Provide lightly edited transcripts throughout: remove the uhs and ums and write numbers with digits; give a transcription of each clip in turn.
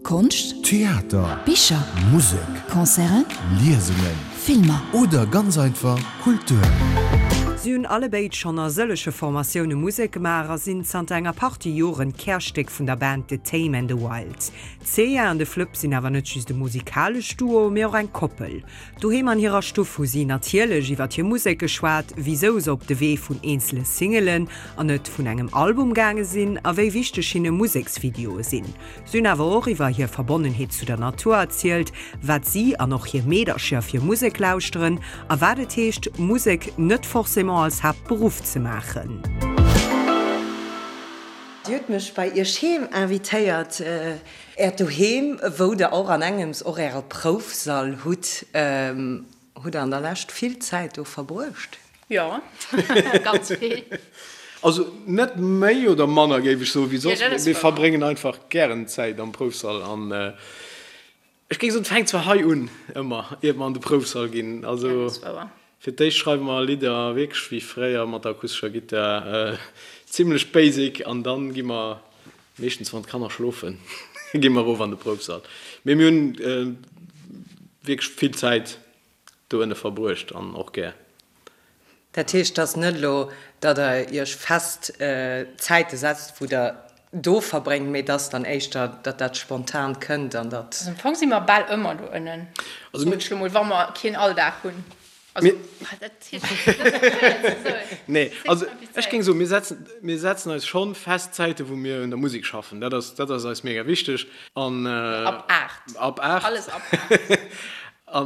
Konscht, Theater, Bicher, Musek, Concerten, Liesungen, Filmer. Oder ganz einfach Kultur. Si hunn allebéid schonn a sëllege Formatioune Musek gemaach a sinn zanter enger Partie Joren d'Kärstéck vun der Band The Tame and the Wild. D'Cea an de Flëpp sinn awer net just e musikalescht Duo, mee och eng Koppel. Doheem an hirer Stuff hu si natierlech iwwer hir Musek geschwat, wisou se op de Wee vun eenzele Singelen an net vun engem Album gaange sinn a wéi wichteg hinne Museksvideoe sinn. Si hunn awer och iwwer hir Verbonnenheet zu der Natur erzielt, wat si an och hir Meedercher fir Musek lauschteren a wat et heescht, Musek net forcément als Haaptberuff ze maachen. Dir hutt mech bei Iech heem invitéiert, Äert Doheem, wou Der och an engems och Äre Proufsall hutt. Hutt Der an der Lescht vill Zäit do verbruecht? Jo, ganz vill. Also net méi oder manner, géif ech soen, wéi soss. Mir verbréngen einfach gären Zäit am Proufsall. An ech géif soen, et fänkt zwar hei un, ëmmer, iert mer an de Proufsall ginn. Also fir d'éischt schreiwe mer Lidder wierklech wéi fréier mat der akustescher Gittar, zimmlech basic. An dann gi mer, meeschtens wann d'Kanner schlofen, gi mer erof an de Proufsall. Mee mir hunn wierklech vill Zäit do ënne verbruecht an och gär. Dat heescht, et ass net elo, datt Der Iech fest Zäite setzt, wou Der do verbréngt, mee et ass dann éischter, datt dat spontan kënnt an datt. Also am Fong si mer bal ëmmer do ënnen, soen ech lo mol, wa mer keen Alldag hunn. Also, dat heescht, dat ass schwéier ze soen. Nee, also ech géing soen, mir setzen, mir setzen eis schonn fest Zäite wou mir un der Musek schaffen. Dat ass, dat ass eis mega wichteg. An. Ab 8. Ab 8. Alles ab 8. A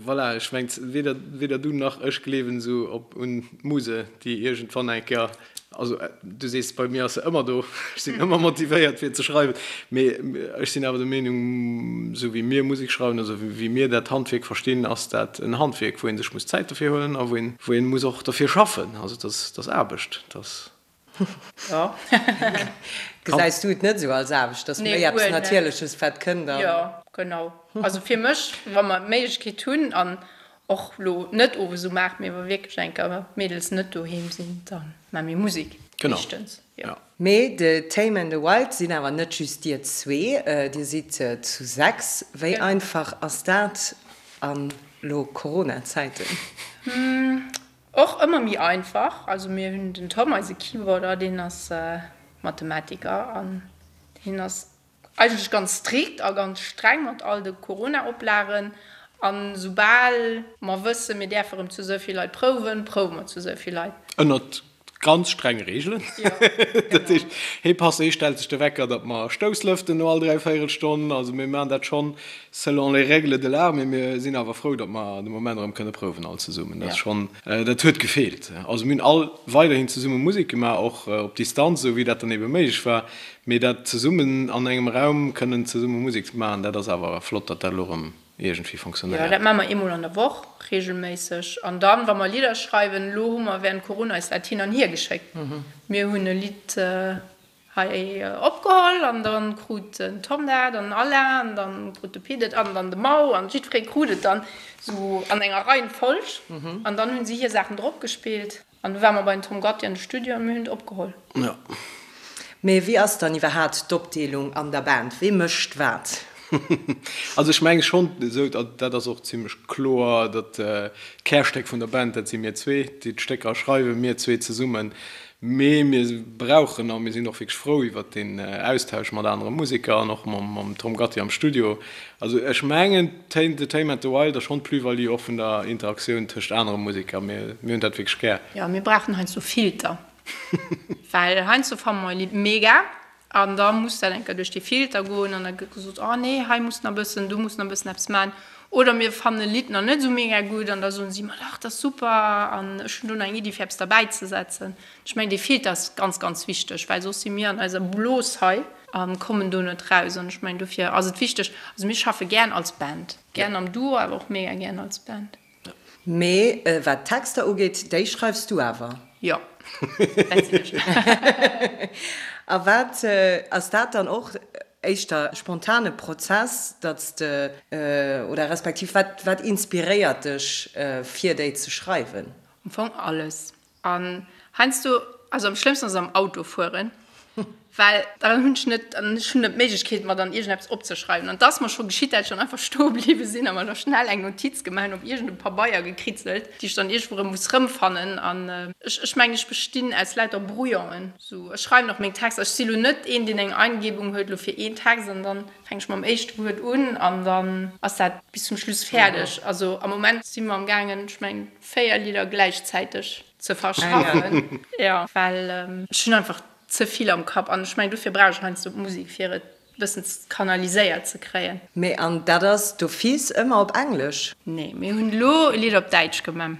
voilà, ech mengt, weder, weder du nach ech gleewen esou op un d'Muse, déi iergendwann eng Kéier, also du sees, bei mir ass se ëmmer do, ech sinn ëmmer motivéiert fir ze schreiwen, mee ech sinn awer der Meenung, esou wéi mir Musek schreiwen, also wéi mir dat Handwierk verstinn, ass dat en Handwierk, wou ee sech muss Zäit dofir huelen a wou een, wou een muss och derfir schaffen. Also et ass, et ass Aarbecht, et ass. Jo. Gesäis du et net esou als Aarbecht, dass méi eppes Natierleches wat kënnt an. Jo, genau. Also fir mech, wa mer d'Méiglechkeet hunn an och lo net owes um 8, mee wa wierklech eng Kéier d'Mädels net doheem sinn, da maache mir Musek meeschtens, jo. Mee The Tame and the Wild sinn awer net just dir zwee, dir sidd zu 6. Wéi einfach ass dat an lo Corona-Zäiten? Och ëmmer méi einfach. Also mir hunn den Tom, eise Keyboarder, deen ass Mathematiker an deen ass eigentlech ganz strikt a ganz streng mat all de Corona-Oplagen. An soubal mer wëssen, mir däerfe rëm zu esou vill Leit prouwen, prouwe mer zu esou vill Leit. Ënnert ganz strenge Reegelen. Dat heescht, hee passt, hee stellt sech de Wecker, datt mer Stousslëften no all dräivéierel Stonn. Also mir maachen dat schonn Selon les règles de l'art, mee mir sinn awer frou, datt mer de Moment erëm kënne prouwen all zesummen. Dat ass schonn, dat huet gefeelt. Also mir hunn all weiderhin zesumme Musek gemaach, och op Distanz, esou wéi dat dann ebe méiglech war. Mee dat zesummen an engem Raum kënnen zesumme Musek maachen, dat ass awer flott, datt dat elo erëm iergendwéi Jo, fonctionnéiert. dat maache mer eemol an der Woch reegelméisseg. An dann, wa mer Lidder schreiwen, elo hu mer während Corona eis dat hin an hier geschéckt. Mir hunn e Lidd Hei opgeholl an dann krut den Tom dat an den Alain an dann krut de Pit et an dann de Mau an jiddweree krut et dann sou an enger Reihenfolg an dann hunn si hir Saachen drop gespillt an du ware mer bei den Tom Gatti an de Studio an mir hunn et opgeholl. Jo. Mee wéi ass dann iwwerhaat d'Opdeelung an der Band? Wee mécht wat? Also ech menge schonn esou, dat ass och zimlech kloer, datt d'Kärstéck vun der Band, dat si mir zwee, déi d'Stécker schreiwen, mir zwee zesummen. Mee mir brauchen, a mir sinn och wierklech frou iwwert deen Austausch mat anere Museker an och mam Tom Gatti am Studio. Also ech mengen, The Tame and the Wild ass schonn d'Plus-value och vun der Interaktioun tëscht anere Museker. Mir hunn dat wierklech gär. Jo, mir brauchen heiansdo Filter, well heiansdo fanne mer e Lidd mega An da muss dat eng Kéier duerch dee Filter goen an da gëtt gesot, oh nee, hei muss nach e bëssen, do muss nach e bëssen eppes maachen. Oder mir fannen e Lidd nach net esou mega gutt an da soen si, ma dach, dat ass super an ech hunn do nach eng Iddi fir eppes derbäi ze setzen. Ech mengen, dee Filter ass ganz, ganz wichteg, well soss si mir an eiser Blos hei a kommen do net raus. An ech mengen, dofir ass et wichteg, also mir schaffe gären als Band, gären am Duo, awer och mega gären als Band. Mee wat d'Texter ugeet, déi schreifs du awer? Jo, dat sinn ech. A wat, ass dat dann och éischter e spontane Prozess, datt s de, oder respektiv wat, wat inspiréiert dech fir déi ze schreiwen? Am Fong alles. An heiansdo, also am schlëmmsten ass am Auto fueren. Well dann hunn ech net, an ech hunn net d'Méiglechkeet, mer dann iergendeppes opzeschreiwen. An et ass mer scho geschitt, dat ech dann einfach stoe bliwwe sinn a mer da schnell eng Notiz gemaach hunn, op iergendem Pabeier gekritzelt, déi ech dann iergendwou erëm muss rëmfannen. An ech, ech mengen, ech bestinn aus lauter Brouillonen. Sou, ech schreiwen och meng Texter. Ech si lo net een, deen eng Eingebung huet lo fir een Text an dann fänk ech mam éischte Wuert un an dann ass dat bis zum Schluss fäerdeg. Also am Moment si mer am gaangen, ech mengen, 4 Lidder gläichzäiteg ze verschaffen. Jo, well ech hunn einfach ze vill am Kapp an ech mengen, dofir brauch ech heiansdo d'Musek, fir et e bëssen kanaliséiert ze kréien. Mee an dat ass d'office ëmmer op Englesch? Nee, mir hunn elo e Lidd op Däitsch gemaach.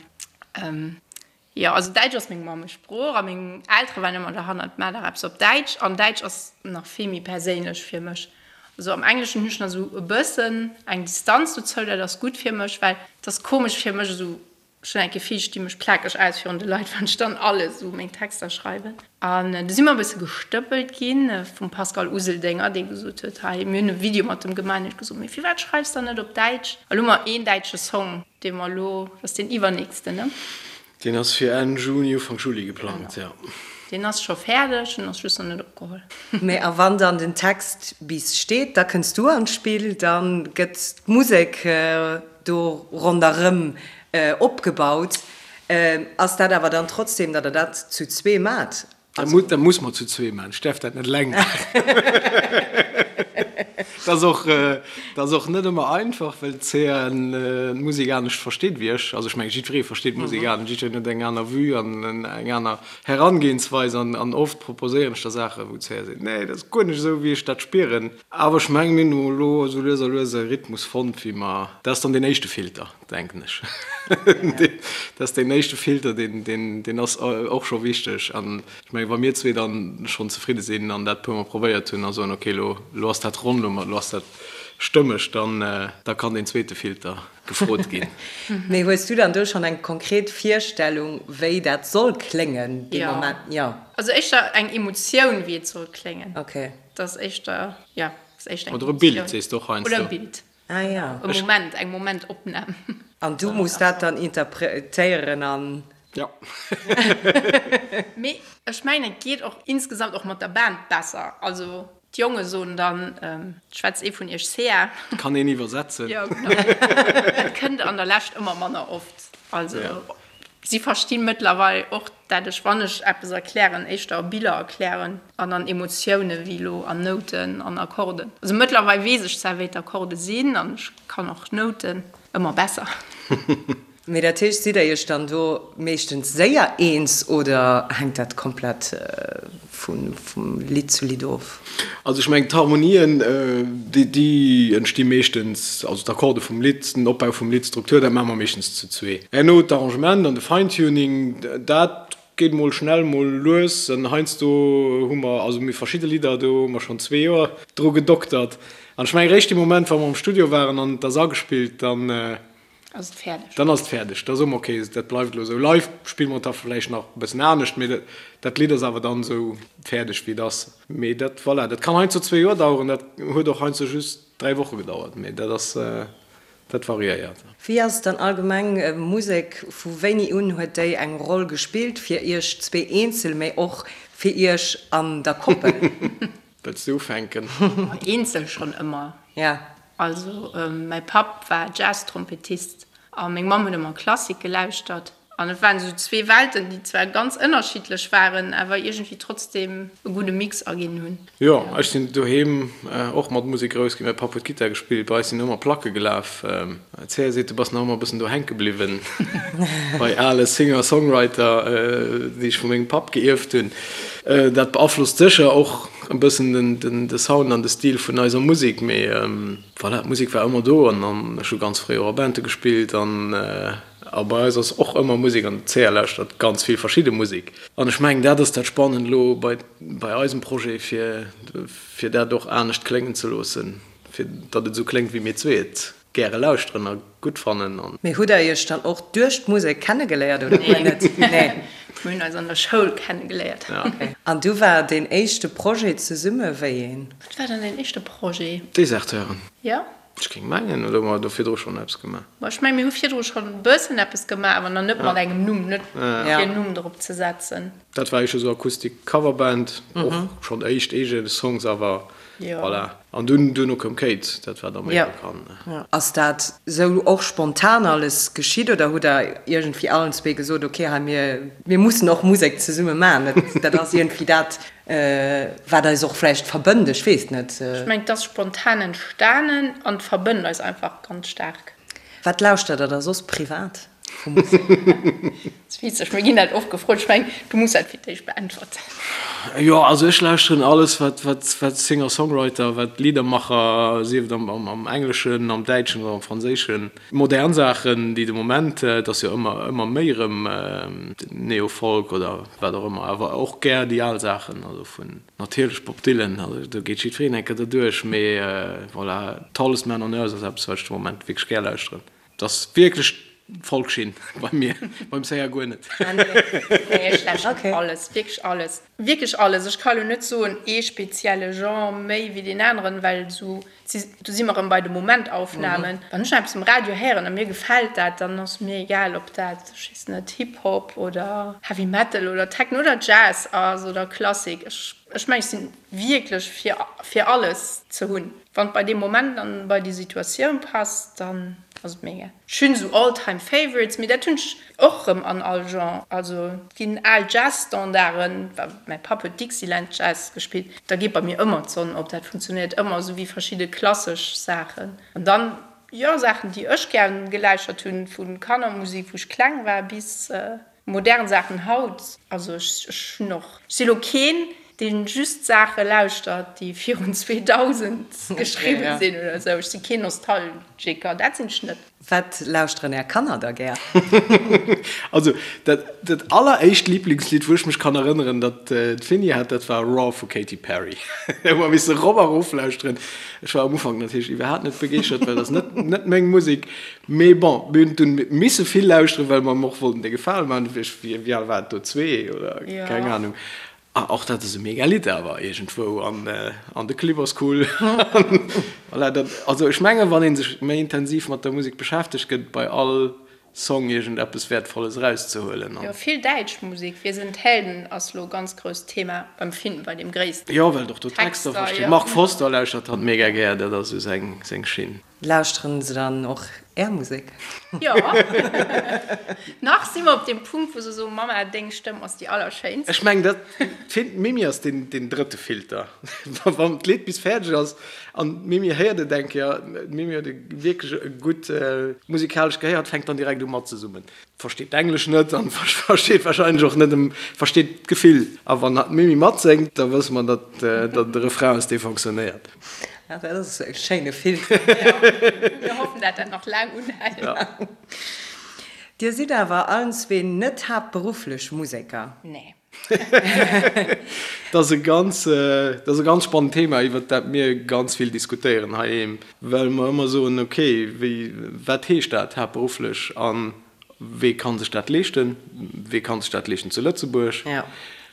Jo, also Däitsch ass meng Mammesprooch a meng Eltere waren ëmmer derhannert, maach dach eppes op Däitsch. An Däitsch ass nach vill méi perséinlech fir mech. Also am Engleschen hunn ech nach esou e bëssen eng Distanz dozou, dat ass gutt fir mech, well et ass komesch fir mech esou, ech hunn eng Gefill, ech di mech plakeg aus virun de Leit, wann ech dann alles esou meng Texter schreiwen. An du si mer e bësse gestëppelt gi vum Pascal Useldinger, dee gesot huet, hei, mir hunn e Video mat em gemaach, an hien huet gesot, mee firwat schreifs dann net op Däitsch? A lo hu mer een däitsche Song. Dee mer elo, dat ass deen iwwernächsten, ne? Deen ass fir Enn Juni, Ufank Juli geplangt, jo. Deen ass scho fäerdeg, en ass just nach net opgeholl. Mee a wann dann den Text bis steet, da kënns du an d'Spill, da gëtt d'Musek do ronderëm opgebaut. Ass dat awer dann trotzdem, datt der dat zu zwee maacht? Dat muss mer zu zwee maachen. Ech däerf dat net eleng maachen. Dat ass och, dat ass och net ëmmer einfach, well d'Cea d'Musek anescht versteet wéi ech. Also ech mengen, jiddweree versteet d'Musek anescht, jiddwereen huet eng aner Vue an eng aner Herangehensweis. An oft proposéieren ech da Saachen, wou d'Cea seet, Nee, dat ass guer net esou, wéi ech dat spieren. Awer ech mengen, mir hunn elo esou lues a lues e Rhythmus fonnt, wéi mer, dat ass dann deen éischte Filter. Denken ech. Dat ass deen éischte Filter, deen ass och scho wichteg. An ech mengen, wa mir zwee dann schonn zefridde sinn an dat e puermol probéiert hunn a soen, okay, elo elo ass dat ronn, elo ass dat stëmmeg, dann da kann deen zweete Filter gefrot ginn. Mee hues du dann do schonn eng konkret Virstellung, wéi dat soll kléngen dee Moment? Jo. Also éischter eng Emotioun, wéi et soll kléngen. Okay. Dat ass éischter, jo, ass éischter eng Emotioun. Oder e Bild, sees de och heiansdo. Oder e Bild. Ah ja. E Moment, eng Momentopnam. An du muss dat dann interpretéieren an. Ja. Mee ech mengen, et geet och insgesamt och mat der Band besser. Also d'Jonge soen dann, schwätzt ee vun iech Sea. Kann een iwwersetzen. Jo, genau. Et kënnt an der Lescht ëmmer manner oft. Also. Si versti mëttlerweil och, dat ech, wann ech eppes erklären, éischter a Biller erklären an an Emotioune wéi elo an Nouten an Akkorden. Also mëttlerweil weess ech zwar, wéi d'Akkorde sinn an ech kann och Nouten ëmmer besser. Mee dat heescht, sidd der iech dann do meeschtens séier eens oder hänkt dat komplett vum Lidd zu Lidd of? Also ech mengen d'Harmonien, déi entsti meeschtens, also d'Akkorde vum Lidd, den Opbau vum Lidd, d'Struktur, dat maache mer meeschtens zu zwee. Herno d'Arrangement an de Fine-Tuning, dat geet mol schnell, mol lues. An heiansdo hu mer, also mir verschidde Lidder, do hu mer schonn zwee Joer dru gedoktert. An ech mengen eréischt dee Moment, wa mer am Studio waren an et ass agespillt, dann, Ass et fäerdeg. Dann ass et fäerdeg. Da soe mer, ok, dat bleift elo esou. Live spille mer et da vläicht nach e bëssen anescht, mee dat Lidd ass awer dann esou fäerdeg, wéi et ass. Mee dat, voilà, dat kann heiansdo zwee Joer daueren, dat huet och heiansdo just dräi Woche gedauert, mee dat ass, dat variéiert. Wéi ass et dann allgemeng, Musek, vu wéini un huet déi eng Roll gespillt fir iech zwee eenzel, mee och fir iech an der Koppel? Wëlls du ufänken? Eenzel schonn ëmmer. Ja. Also mäi Papp war Jazztrompetist a meng Mamm huet ëmmer Klassik gelauschtert. An et waren esou zwee Welten, déi zwar ganz ënnerschiddlech waren, awer iergendwéi trotzdeem e gudde Mix erginn hunn. Jo, ech sinn doheem och mat Musek grouss ginn. Mäi Papp huet Gittar gespillt, bei eis sinn ëmmer Placke gelaf. D'Cea seet, du bass nach ëmmer e bëssen do hänke bliwwen bei ale Singer-Songwriter, déi ech vu mengem Papp geierft hunn. Dat beaflosst sécher och e bëssen de Sound an de Stil vun eiser Musek, mee voilà, d'Musek war ëmmer do an ech hu ganz fréi och a Bande gespillt an a bei eis ass och ëmmer Musek an d'Cea lauschtert ganz vill verschidde Musek. An ech mengen, dat ass dat Spannend elo bei bei eisem Projet, fir fir dat och anescht kléngen ze loossen, fir datt et esou kléngt, wéi mir zwee et gäre lauschteren a gutt fannen. Mee hutt der iech dann och duerch d'Musek kennegeléiert oder guer net? Nee. Mir hunn eis an der Schoul kennegeléiert. An du war deen éischte Projet zesumme wéi een? Wat war dann deen éischte Projet? Deserteuren. Jo. Ech géing mengen, oder hu mer do virdru schonn eppes gemaach? Ma ech mengen, mir hu virdru schonn e bëssen eppes gemaach, awer nach net mat engem Numm, net fir en Numm drop ze setzen. Dat war éischter sou Akustik Coverband, och schonn éischt eege Songs, awer voilà. An dunn, duerno koum Kate, dat war da méi bekannt. Ass dat sou och spontan alles geschitt oder hutt der iergendwéi allen zwee gesot, ok, hei mir, mir mussen och Musek zesumme maachen, dat ass iergendwéi dat, Wat eis och vläicht verbënnt, ech weess net. Ech mengen, et ass spontan entstanen an et verbënnt eis einfach ganz staark. Wat lauschtert der da soss privat vu Musek? Dat ass witzeg, mir ginn dat oft gefrot. Ech mengen, du muss dat fir d'éischt beäntwerten. Jo, also ech lauschteren alles, wat, wat, wat Singer-Songwriter, wat Liedermacher, sief et am, am Engleschen, am Däitschen oder am Franséischen. Modern Saachen, déi de Moment, et ass jo ëmmer, ëmmer méi erëm Neo-Folk oder wat och ëmmer, awer och gär déi al Saachen, also vun natierlech Bob Dylan, also do geet jiddwereen eng Kéier derduerch, mee voilà, Tallest Man on Earth ass eppes, wat ech de Moment wierklech gär lauschteren. Et ass wierklech Folkschinn bei mir, beim Sänger guer net. Nee, ech lauschteren alles, wierklech alles, wierklech alles. Ech ka lo net soen, ee spezielle Genre méi wéi deen aneren, well esou Do si mer erëm bei de Momentaufnahmen. Wann ech eppes um Radio héieren a mir gefält dat, dann ass mir egal, ob dat, ech weess net, Hip-Hop oder Heavy Metal oder Techno oder Jazz ass oder Klassik. Ech, ech mengen, ech si wierklech fir, fir alles ze hunn. Wann et bei deem Moment an bei déi Situatioun passt, dann ass et mir egal. Ech hunn esou All-Time Favorites, mee dat hunn ech och erëm an all Genre. Also et ginn al Jazz-Standarden, mäi Papp huet Dixieland Jazz gespillt, da geet bei mir ëmmer d'Sonn op, dat funktionéiert ëmmer, esou wéi verschidde klassesch Saachen. An dann, jo, Saachen, déi ech gär geläuschert hunn, vu Kannermusek, wou ech kleng war, bis modern Saachen haut. Also ech hunn och, ech si lo keen, dee just Saache lauschtert, déi virun 2000 geschriwwen sinn oder esou. Ech si keen Nostalgiker, dat sinn ech net. Wat lauschteren Är Kanner da gär? Also dat dat alleréischt Liblingslidd, wou ech mech kann erënneren, dat d'Finny hat, dat war Roar vu Katy Perry. Hu mer misse rop a rof lauschteren. Ech war am Ufank natierlech iwwerhaapt net begeeschtert, well dat ass net net meng Musek. Mee bon, mir hunn dunn misse vill lauschteren, well mer em och wollten de Gefale man. Wéi al war et do? Zwee oder keng Anung. Ah, och dat ass e mega Lidd awer iergendwou an an de Clip ass cool. Voilà, dat, also ech mengen, wann ee sech méi intensiv mat der Musek beschäftegt, gëtt et bei all Song iergendeppes Wäertvolles erauszehuelen. Jo, vill däitsch Musek. Wir sind Helden ass lo ganz grousst Thema beim Finn, bei deem Gréissten. Jo, well et och do Texter versteet. Mark Forster lauschtert hatt mega gär, dat ass esou seng seng Schinn. Lauschteren se dann och Är Musek? Jo. Nach si mer op deem Punkt, wou se soen, Mamma, deng Stëmm ass déi allerschéinst. Ech mengen, dat, d'Mimi ass deen, deen drëtte Filter. Wann d'Lidd bis fäerdeg ass an d'Mimi héiert et eng Kéier, d'Mimi huet e wierklech e gutt musikalescht Gehéier, fänkt dann direkt u matzesummen. Versteet d'Englesch net an versteet wahrscheinlech och net em, versteet d'Gefill. A wann d'Mimi matséngt, da wësse mer, datt dat de Refrain ass, dee fonctionnéiert. Ah, dat ass e schéine Filter. Mir hoffen, dat dat nach laang unhält. Dir sidd awer allen zwee net haaptberufflech Museker? Nee. Dat ass e ganz, dat ass e ganz spannend Thema, iwwert dat mir ganz vill diskutéieren heiheem, well mer ëmmer soen, okay, wéi, wat heescht dat haaptberufflech a wee ka sech dat leeschten, wee ka sech dat leeschten zu Lëtzebuerg?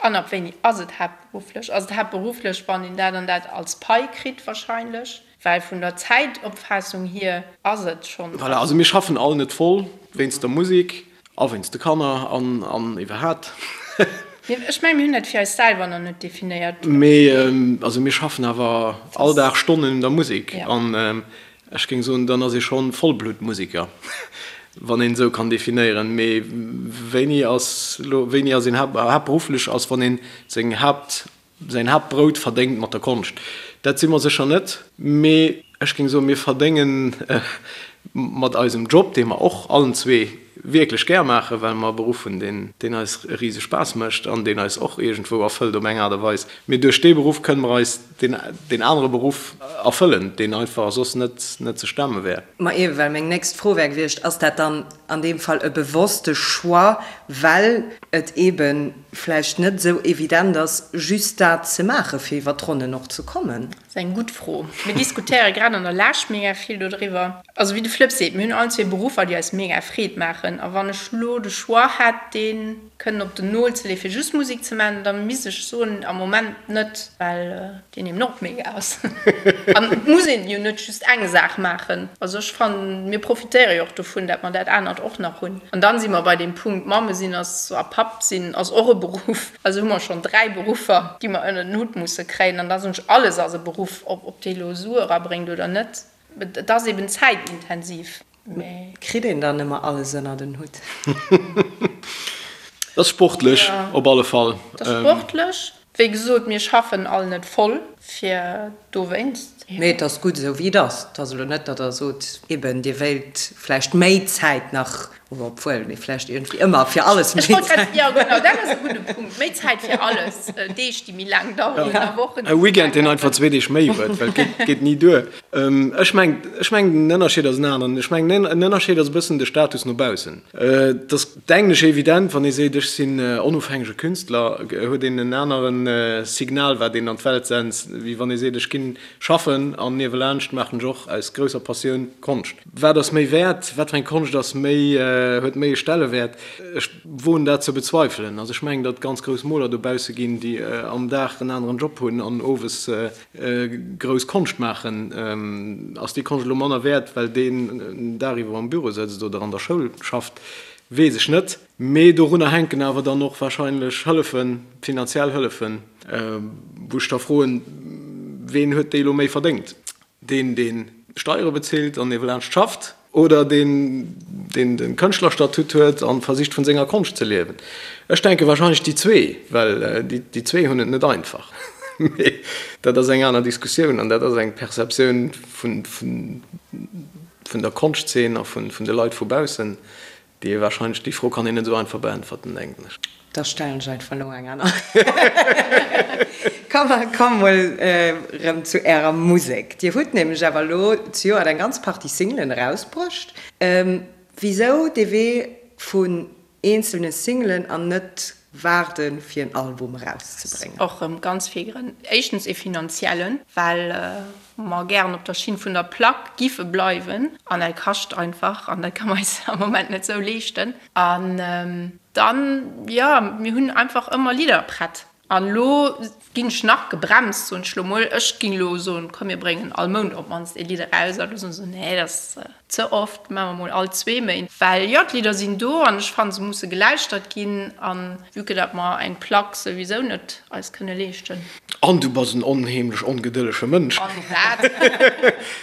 An ab wéini ass et haaptberufflech? Ass et haaptberufflech, wann een dat an dat als Pai kritt? Wahrscheinlech, well vun der Zäitopfaassung hier ass et schonn. Voilà, also mir schaffen all net voll wéinst der Musek a wéinst de Kanner an an iwwerhaapt. Ech mengen, mir hunn dat fir eis selwer nach net definéiert. Mee also mir schaffen awer all Dag Stonnen un der Musek an ech géing soen, dann ass ee schonn Vollbluttmusiker, wann een esou kann definéieren. Mee wéini ass elo, wéini ass een haaptberufflech ass, wann een seng Haapt Säin Haaptbrout verdéngt mat der Konscht. Dat si mer sécher net, mee ech géing soen, mir verdénge mat eisem Job, dee mer och allen zwee wierklech gär maachen, well mer e Beruff hunn, deen eis e rise Spaass mécht an deen eis och iergendwou erfëllt op eng Aart a Weis. Mee duerch dee Beruff kënne mer eis deen anere Beruff erfëllen, deen einfach soss net ze stemme wär. Ma ewe, well meng nächst Fro wär gewiescht, Ass dat dann an deem Fall e bewosste Choix, well et eebe vläicht net esou evident ass, just dat ze maachen, fir iwwer d'Ronnen och ze kommen? Dat ass eng gutt Fro. Mir diskutéiere grad an der Lescht mega vill dodriwwer. Also wéi de Flëpp seet, mir hunn allen zwee Beruffer, déi eis mega Freed maachen. maachen. A wann ech lo de Choix hätt, dee kënnen op den Nol ze leeë fir just Musek ze maachen, da misst ech soen, am Moment net, well deen eben och mega ass. An et muss een jo net just eng Saach maachen. Also ech fannen, mir profitéiere jo och dovun, dat mer dat anert och nach hunn. An dann si mer bei deem Punkt, Mamme sinn ass a Papp sinn ass och e Beruff. Also hu mer schonn 3 Beruffer, déi mer ënner den Hutt musse kréien. An da soen ech, alles ass e Beruff, ob dee lo Sue erabréngt oder net. Et ass eben zäitintensiv. Mee kritt een dann ëmmer alles ënner den Hutt? Dat ass sportlech op alle Fall. Dat ass sportlech. Wéi gesot, mir schaffen all net voll fir dowéinst. Mee et ass gutt esou wéi et ass. Et ass elo net, datt Der sot, eben Dir wéilt vläicht méi Zäit nach, oder obwuel, mee vläicht iergendwéi ëmmer fir alles méi Zäit. Jo genau, dat ass e gudde Punkt. Méi Zäit fir alles. Deeg, déi méi laang daueren a Wochen, déi méi laang daueren. E Weekend, deen einfach zwee Deeg méi huet, well et geet ni duer. Ech mengen, ech mengen den Ënnerscheed ass en aneren. Ech mengen en Ënnerscheed ass e bëssen de Status no baussen. Et ass, denken ech, evident, wann ee seet, ech sinn onofhängege Künstler, huet een en anere Signal, wat een an d'Welt sent, wéi wann ee seet, ech ginn schaffen an niewelaanscht maachen ech och aus grousser Passioun Konscht. Wat ass méi wäert? Wat fir eng Konscht ass méi, huet méi e Stellewäert? Ech woen dat ze bezweifelen. Also ech mengen, datt et ganz grouss Moler dobausse ginn, déi am Dag en aneren Job hunn an owes Grouss Konscht maachen, ass déi Konscht elo manner wäert, well deen dariwwer am Büro sëtzt oder an der Schoul schafft, weess ech net. Mee dorunner hänken awer dann och wahrscheinlech Hëllefen, finanziell Hëllefen, wou ech da froen, Ween huet déi elo méi verdéngt? Deen, dee Steiere bezilt an niewelaanscht schafft? Oder deen, deen de Kënschtlerstatut huet a versicht vun senger Konscht ze liewen. Ech denke wahrscheinlech déi zwee, well déi zwee hunn et net einfach. Mee dat ass eng aner Diskussioun an dat ass eng Perceptioun vun der Konschtzeen a vun de Leit vu baussen, Déi ee wahrscheinlech, déi Fro kann een net esou einfach beäntwerten, denken ech. Da stellen ech einfach elo eng aner. Komm, komm mol erëm zu Ärer Musek. Dir hutt nämlech awer elo zejoert eng ganz Partie Singlen erausbruecht. Wisou dee Wee vun eenzelne Singlen an net waarde fir en Album erauszebréngen? Och erëm ganz vill Grënn. Éischtens ee finanziellen, well mer gären op der Schinn vun der Plack giffe bleiwen an dat kascht einfach an dat ka mer eis am Moment net sou leeschten. An dann, jo, mir hunn einfach ëmmer Lidder prett. An elo ginn ech nach gebremst, soen ech elo mol. Ech ging elo soen, komm mir bréngen all Mount op d'mannst ee Lidd eraus. A lo soen se, nee, dat ass ze oft, maache mer mol all zwee Méint. Well jo, d'Lidder sinn do an ech fannen, se musse gelauschtert ginn. A vue que dat mer eng Plack souwisou net eis kënne leeschten. An du bass en onheemlech ongedëllege Mënsch. An dat.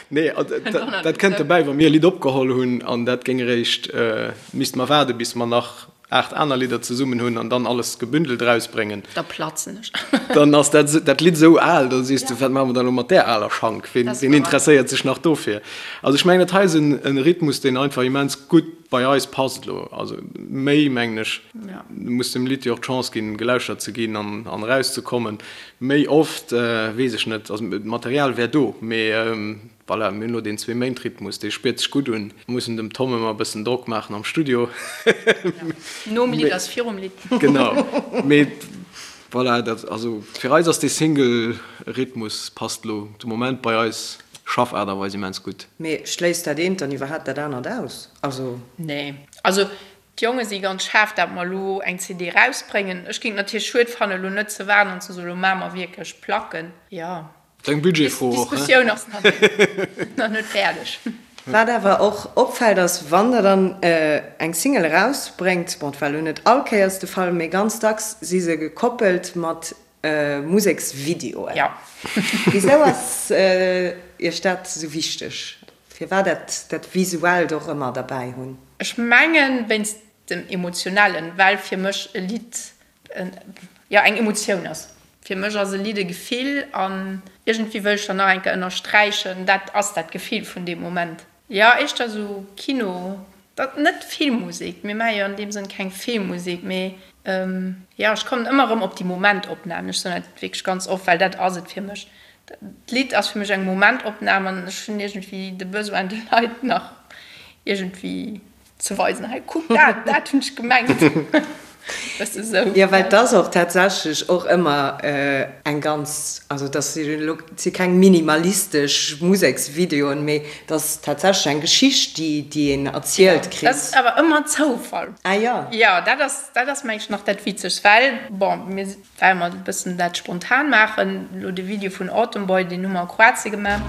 Nee, dat kënnt dobäi, wa mir e Lidd opgeholl hunn an dat géing eréischt, misste mer waarde bis mer nach 8 aner Lidder zesummen hunn an dann alles gebündelt erausbréngen, Da platzen ech. dann ass dat dat Lidd esou al, da sees de, wat maache mer dann elo mat där aler Schank? Ween ween interesséiert sech nach dofir? Also ech mengen, dat hei ass en e Rhythmus, deen einfach immens gutt bei eis passt elo. Also méi, mengen ech, muss dem Lidd jo och d'Chance ginn, gelauschtert ze ginn an an erauszekommen. Méi oft, weess ech net. Also d'Material wär do, mee Voilà, mir hunn elo deen Zwee-Méint-Rhythmus, dee spiert sech gutt un. Mir mussen dem Tom ëmmer e bëssen Drock maachen am Studio. Nom Lidd ass virum Lidd. Genau. Mee voilà, dat, also fir eis ass dee Single-Rhythmus passt elo de Moment bei eis Schaffaart a Weis immens gutt. Mee schléisst dat eent dann iwwerhaapt dat anert aus? Also. Nee. Also d'Jonge si ganz schaarf, dat mer elo eng CD erausbréngen. Ech géing et natierlech schued fannen, elo net ze waarden an ze soen, elo maache mer wierklech Placken. Jo. Eng Budgetfro och, he? D'Diskussioun ass nach net fäerdeg. Wat awer och opfält ass, wann der dann eng Single erausbréngt, bon et war elo net all Kéiers de Fall, mee ganz dacks si se gekoppelt mat Museksvideoen. Jo. Wisou ass Iech dat esou wichteg? Firwat dat dat Visuellt och ëmmer derbäi hunn? Ech mengen wéinst dem Emotionellen, well fir mech e Lidd jo eng Emotioun ass. Fir mech ass e Lidd e Gefill an iergendwéi wëll ech dann nach eng Kéier ënnersträichen, dat ass dat Gefill vun deem Moment. Jo, éischter esou Kino, dat net Filmmusek, mir maache jo an deem Sënn keng Filmmusek, mee jo, ech kommen ëmmer erëm op déi Momentopnamen. Ech soen dat wierklech ganz oft, well dat ass et fir mech. D'Lidd ass fir mech eng Momentopnam an ech hunn iergendwéi de Besoin, de Leit nach iergendwéi Ze weisen, hei kuck dat, dat hunn ech gemengt. Bësse sou. Jo, well et ass och tatsächlech och ëmmer eng ganz, also et ass elo, et si keng minimalistesch Museksvideoen, mee et ass tatsächlech eng Geschicht, déi, déi een erzielt kritt. Dat ass awer ëmmer Zoufall. Ah jo. Jo, dat ass, dat ass mengen ech nach dat Witzegst, well, bon, mir Well mer e bëssen dat spontan maachen. Elo de Video vun Autumn Boy, deen hu mer a Kroatien gemaach.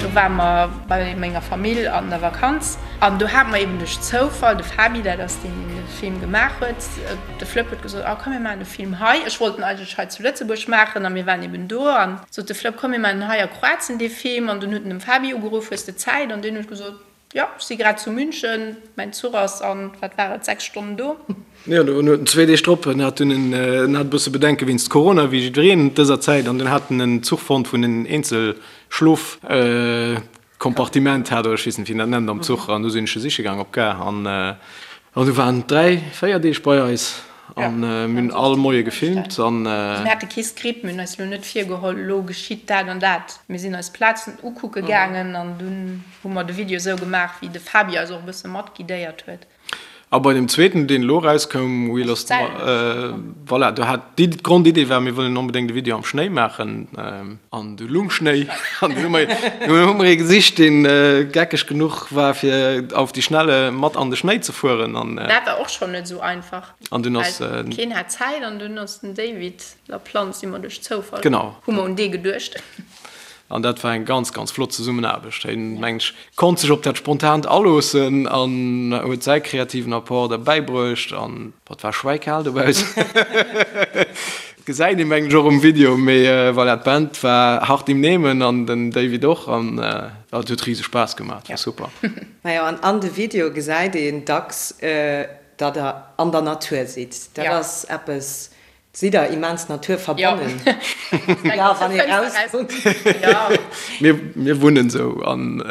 Do ware mer bei menger Famill an der Vakanz an do hate mer eben duerch Zoufall de Fabi, dat ass deen, deen de Film gemaach huet, de Flëpp huet gesot, oh komm mir maachen de Film hei. Ech wollt en eigentlech hei zu Lëtzebuerg maachen a mir waren eben do an sot de Flëpp, komm mir maachen en hei a Kroatien dee Film. An dunn huet en dem Fabi ugeruff, hues de Zäit? An deen huet gesot, Jo, ech si grad zu München, mäin Zuch ass an, wat war et, 6 Stonnen do. Jo, dunn huet en zwéi Deeg drop, en hat dunn en, en hat e bësse Bedenke wéinst Corona, wéi jiddwereen dëser Zäit, an dunn hat en en Zuch fonnt, wou en en eenzel Schlofkompartiment hat, oder ech weess net, wéi een dat nennt am Zuch, an du sinn ech e siche gaang op d'Gare an an du waren en dräi, véier Deeg bei eis an mir hunn all Moie gefilmt an. Mir hate kee Skript, mir hunn eis elo net virgeholl, elo geschitt dat an dat. Mir sinn eis d'Plazen ukucke gaangen an dunn. Hu mer de Video esou gemaach wéi de Fabi eis och e bësse mat guidéiert huet. A bei dem zweeten, deen elo erauskoum, We Lost, voilà, do hat déi d'Grondidee war, mir wëllen onbedéngt e Video am Schnéi maachen, an du lung Schnéi, an dunn hu mer, dunn hu mer ee gesicht, deen geckeg genuch war, fir auf die Schnelle mat an de Schnéi ze fueren, an. Dat war och schonn net esou einfach, An dunn ass. well keen hat Zäit, an dunn ass den David Laplante, si mer duerch Zoufall, Genau. hu mer un dee geduecht. An dat war eng ganz, ganz flott Zesummenaarbecht. Hien, mengen ech, konnt sech op dat Spontant aloossen an huet säi kreativen Apport derbäi bruecht. An et war schwäikal dobaussen. Gesäit ee, mengen ech, och um Video. Mee voilà, d'Band war hart im Nehmen an den David och. An et huet rise Spaass gemaach. Et war super. Majo, an an de Videoe gesäit een dacks, datt der an der Natur sidd. Dat ass eppes, Sidd der immens naturverbonnen? Jo, wann ee rauskuckt. Mir wunnen esou an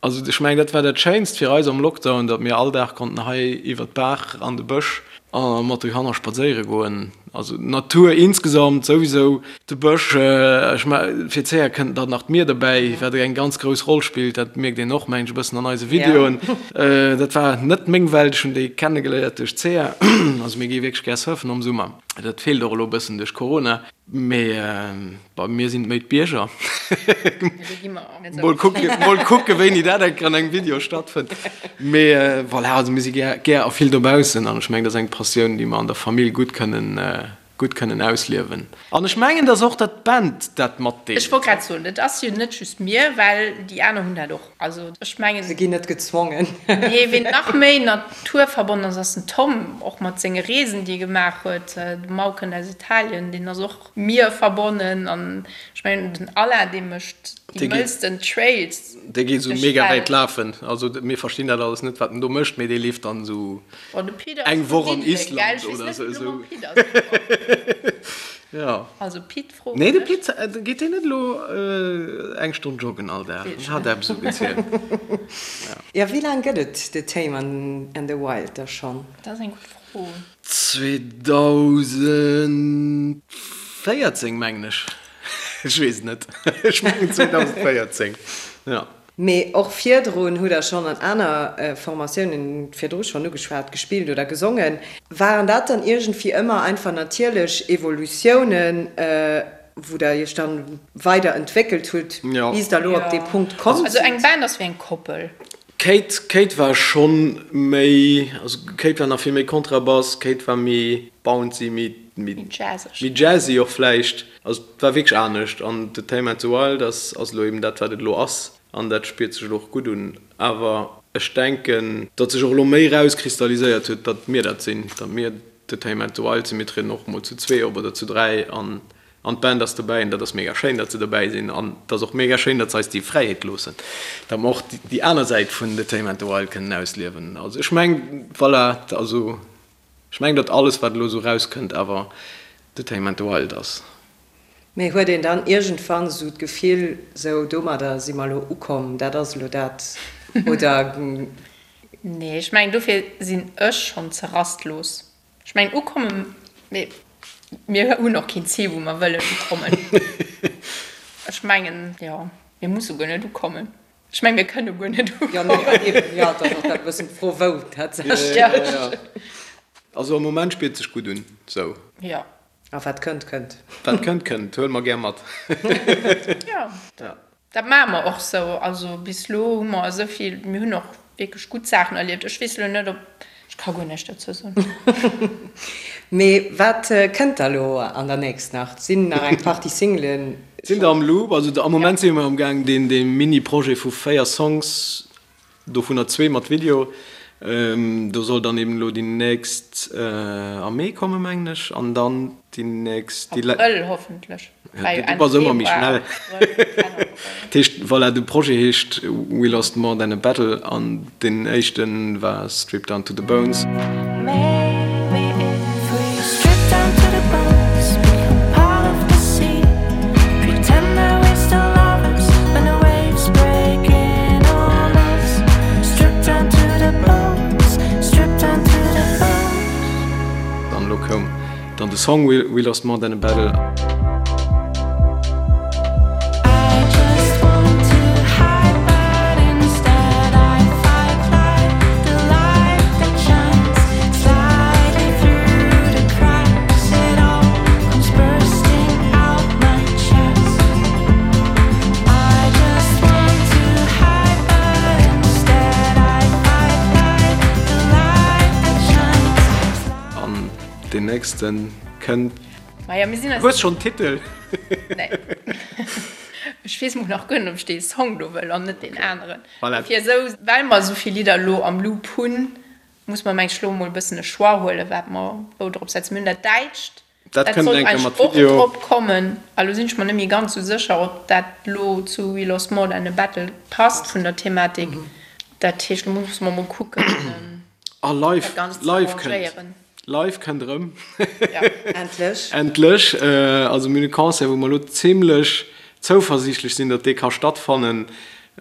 also ech mengen dat war dat Schéinst fir eis am Lockdown, datt mir all Dag konnten hei iwwer d'Baach an de Bësch a mat de Kanner spadséiere goen. Also d'Natur insgesamt souwisou, de Bësch, ech me fir d'Céa kënnt dann nach d'Mier dobäi, wat eng ganz grouss Roll spillt, dat mierkt een och mengen ech e bëssen an eise Videoen. Dat war net meng Welt, ech hunn déi kennegeléiert duerch d'Céa. Also mir gi wierklech gär surfen am Summer. Dat feelt och elo e bëssen duerch Corona. Mee bei mir sinn et méi d'Bierger. Mol kucke, mol kucke wéini dat eng Kéier an engem Video stattfënnt. Mee voilà, also mir si gär, gär a vill dobaussen an ech mengen, dat ass eng Passioun, déi mer an der Famill gutt kënnen gutt kënnen ausliewen. An ech mengen, dass och dat d'Band dat matdeelt. Ech wollt grad soen, et ass jo net just mir, well déi aner hunn dat och. Also ech mengen. Se ginn net gezwongen. Nee, ween nach méi naturverbonnen ass, ass den Tom, och mat senge Reesen, déi e gemaach huet. De Mau kënnt aus Italien, deen ass och mierverbonnen. An ech mengen, den Alain, dee mécht déi mëllsten Trails. Dee geet esou mega wäit lafen. Also mir verstinn dat alles net, wat en do mécht, mee dee leeft dann esou. Eng Woch an Island oder sou. Jo. Also Pit froen ech. Nee de Pit, geet deen net elo eng Stonn joggen all Dag? En hat eppes esou gezielt. Jo, wéi laang gëtt et The Tame and the Wild da schonn? Dat ass eng gutt Fro. 2014 mengen ech. Ech weess et net. Ech mengen 2014, jo. Mee och virdrun hutt der schonn an aner Formatiounen, virdru schonn ugeschwat, gespillt oder gesongen. Waren dat dann iergendwéi ëmmer einfach natierlech Evolutiounen, wou der iech dann weider entwéckelt hutt, bis der elo op dee Punkt komm sidd? Also eng Band ass wéi eng Koppel. D'Kate, Kate war schonn méi, also Kate war nach vill méi Kontrabass, Kate war méi bouncy, méi, méi jazzy och vläicht. Also et war wierklech anescht an The Tame and the Wild ass ass elo eben dat wat et elo ass an dat spiert sech elo och gutt un. Awer ech denken, datt sech och elo méi erauskristalliséiert huet, datt mir dat sinn, datt mir The Tame and the Wild sinn. Mir trieden och mol zu zwee op oder zu dräi an. An d'Band ass dobäi an dat ass mega schéin, datt se dobäi sinn. An et ass och mega schéin, datt se eis déi Fräiheet loossen, datt mer och déi aner Säit vun The Tame and the Wild kënnen ausliewen. Also ech meng, voilà, also ech meng, datt alles, wat elo esou erauskënnt, awer The Tame and the Wild ass. Mee huet een dann iergendwann esou d'Gefill, sou domadder si mer elo ukomm, dat ass elo dat, oder? Nee, ech mengen dofir sinn ech schonn ze rastlos. Ech mengen ukommen, mee mir hunn och keen Zil wou mer wëllen ukommen. Ech mengen, jo, mir musse guer net ukommen. Ech mengen, mir kënne guer net ukommen. Jo, nee, eben, jo, et ass och dat e bëssen d'Fro wou tatsächlech. Jo, jo. Also am Moment spiert sech gutt un, sou. Jo. A wat kënnt, kënnt. Wat kënnt, kënnt. Huele mer gär mat. Jo. Dat maache mer och sou. Also bis elo hu mer esou vill, mir hunn och wierklech gutt Saachen erlieft. Ech weess elo net, ob, ech ka guer näischt dozou soen. Mee wat kënnt da lo an der nächst nach? Sinn nach eng Partie Singlen? Sinn der am Loop. Also am Moment si mer am gaang deen Mini-Projet vu 4 Songs Dovunner zwee mat Video. Do soll dann eben elo déi nächst am Mee kommen, mengen ech, an dann déi nächst, déi. Abrëll hoffentlech. Ja, du bass ëmmer méi schnell. Dat heescht, voilà, de Projet heescht We Lost More Than A Battle an deen éischte war Stripped Down To The Bones. An elo koum dann de Song We Lost More Than A Battle. An deen nächsten kënnt. Maja, mir sinn eis. Hues schonn Titel? Nee. Ech weess mol nach guer net, ob ech dee Song do wëll an net deen aneren. Voilà. Fir esou, well mer esou vill Lidder elo am Loop hunn, muss mer, meng ech, elo mol e bëssen e Choix huelen, wat mer wou drop setzen. Mir hunn dat Däitscht, Dat dat kënnt sollt eng Kéier eigentlech mat och Video. drop kommen. A lo sinn ech mer net méi ganz esou sécher, ob dat elo zu We Lost More Than a Battle passt vun der Thematik. Dat heescht, lo musse mer mol kucken. A live, dat Ganzt ze live kënnt, arrangéieren. live kënnt erëm. Ja. Endlech. Endlech. Also mir hunn e Concert, wou mer elo zimlech zouversiichtlech sinn, datt dee ka stattfannen,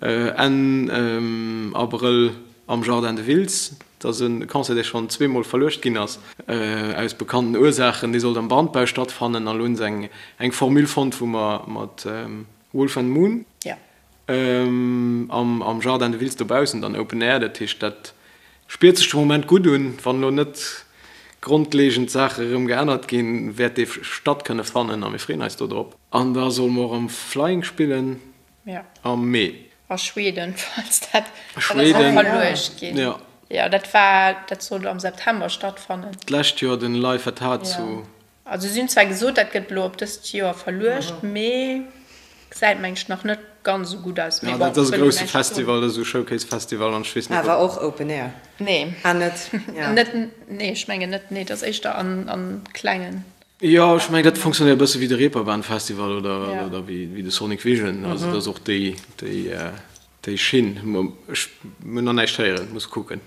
Enn Abrëll am Jardin de Wiltz. Dat ass e Concert, dee schonn zweemol verluecht ginn ass, aus bekannten Ursaachen. Dee sollt am Brandbau stattfannen an elo hunn se eng, eng Formule fonnt, wou mer mat Wolf and Moon, Ja. Am Jardin de Wiltz dobaussen dann Open Air, dat heescht dat spiert sech de Moment gutt un. Wann elo net grondlegend Saache erëm geännert ginn, wäert dee statt kënne fannen a mir freeën eis do drop. An da solle mer och am Flying spillen am Mee. A Schweden, falls dat, dat ass och verluecht ginn. Jo. Jo, dat war, dat sollt am September stattfannen. D'lescht Joer den Live at Heart zu. Also si hunn zwar gesot, dat gëtt elo op dëst Joer verluecht, mee gesäit meng ech nach net ganz esou gutt aus. Mee bon, dat ass e grousse Festival, dat ass esou e Showcase-Festival an ech weess net, ob. Awer och Open Air? Nee. Ah, net? Ja. Net, nee, ech mengen net, nee, dat ass éischter an, an klengen. Jo, ech mengen, dat fonctionnéiert e bësse wéi de Reeperbahn Festival oder, oder wéi de Sonic Vision. Also dat ass och déi, déi. Déi Schinn, ech hunn nach näischt héieren, muss kucken.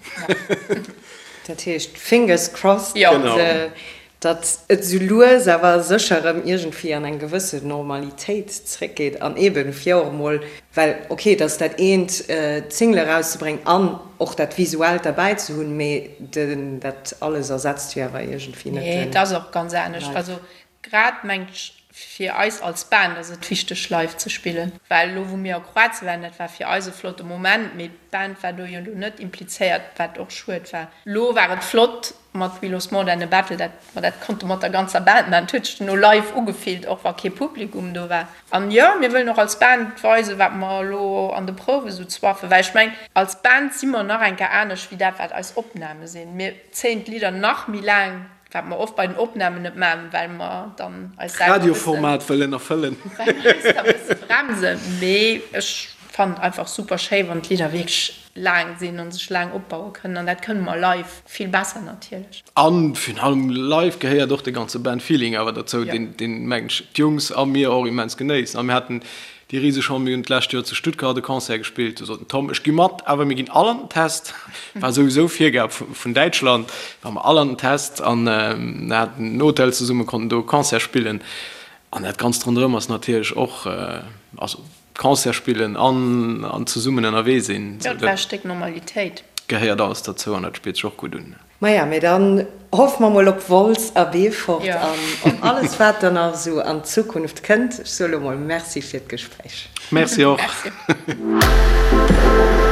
Dat heescht, fingers crossed, datt et esou lues awer sécher erëm iergendwéi an eng gewësse Normalitéit zréckgeet an eeben fir och emol, well ok, et ass dat eent d'Single erauszebréngen an och dat Visuellt derbäi ze hunn, mee dat alles ersetzt jo awer iergendwéi net den. Nee, et ass och ganz anescht. Also Grad mengt ech fir eis als Band ass et wichteg live ze spillen, well elo wou mir a Kroatien waren, dat war fir eis e flotte Moment, mee d'Band war do jo elo net implizéiert, wat och schued war. Elo war et flott mat We Lost More Than A Battle, dat mer dat konnte mat der ganzer Band maachen, et huet sech duerno live ugefillt, och wa kee Publikum do war. An jo, mir wëllen och als Band weisen, wat mer elo an de Prouwe sou zwaffen, well ech mengen als Band si mer nach eng Kéier anescht wéi dat wat eis Opname sinn. Mir zéien d'Lidder nach méi laang Wat mer oft bei den Opnamen net maachen, well mer dann eis selwer e bëssen. Radioformat wëllen erfëllen. Well mer eis da e bësse bremsen. Mee ech fannen et einfach super schéi wann d'Lidder wierklech laang sinn an sech laang opbaue kënnen an dat kënne mer live vill besser natierlech. An virun allem live gehéiert och de ganze Band Feeling awer derzou, deen deen mengen ech d'Jungs a mir och immens genéissen. A mir haten déi riseg Chance, mir hunn d'lescht Joer zu Stuttgart e Concert gespillt, do sot den Tom, ech gi mat, awer mir ginn all an den Test, war souwisou Virgab vun Däitschland, ware mer all an den Test an haten en Hotel zesummen, konnten do e Concert spillen an dat Ganzt ronderëm ass natierlech och, also Concert spillen an an zesummen ënnerwee sinn. Jo, dat war e Stéck Normalitéit. Gehéiert alles derzou an dat spiert sech och gutt un. Maja, mee dann hoffe mer mol op Wolz a Beefort an op alles wat dann nach esou an Zukunft kënnt. Ech soe lo mol Merci fir d'Gespréich. Merci och. Merci.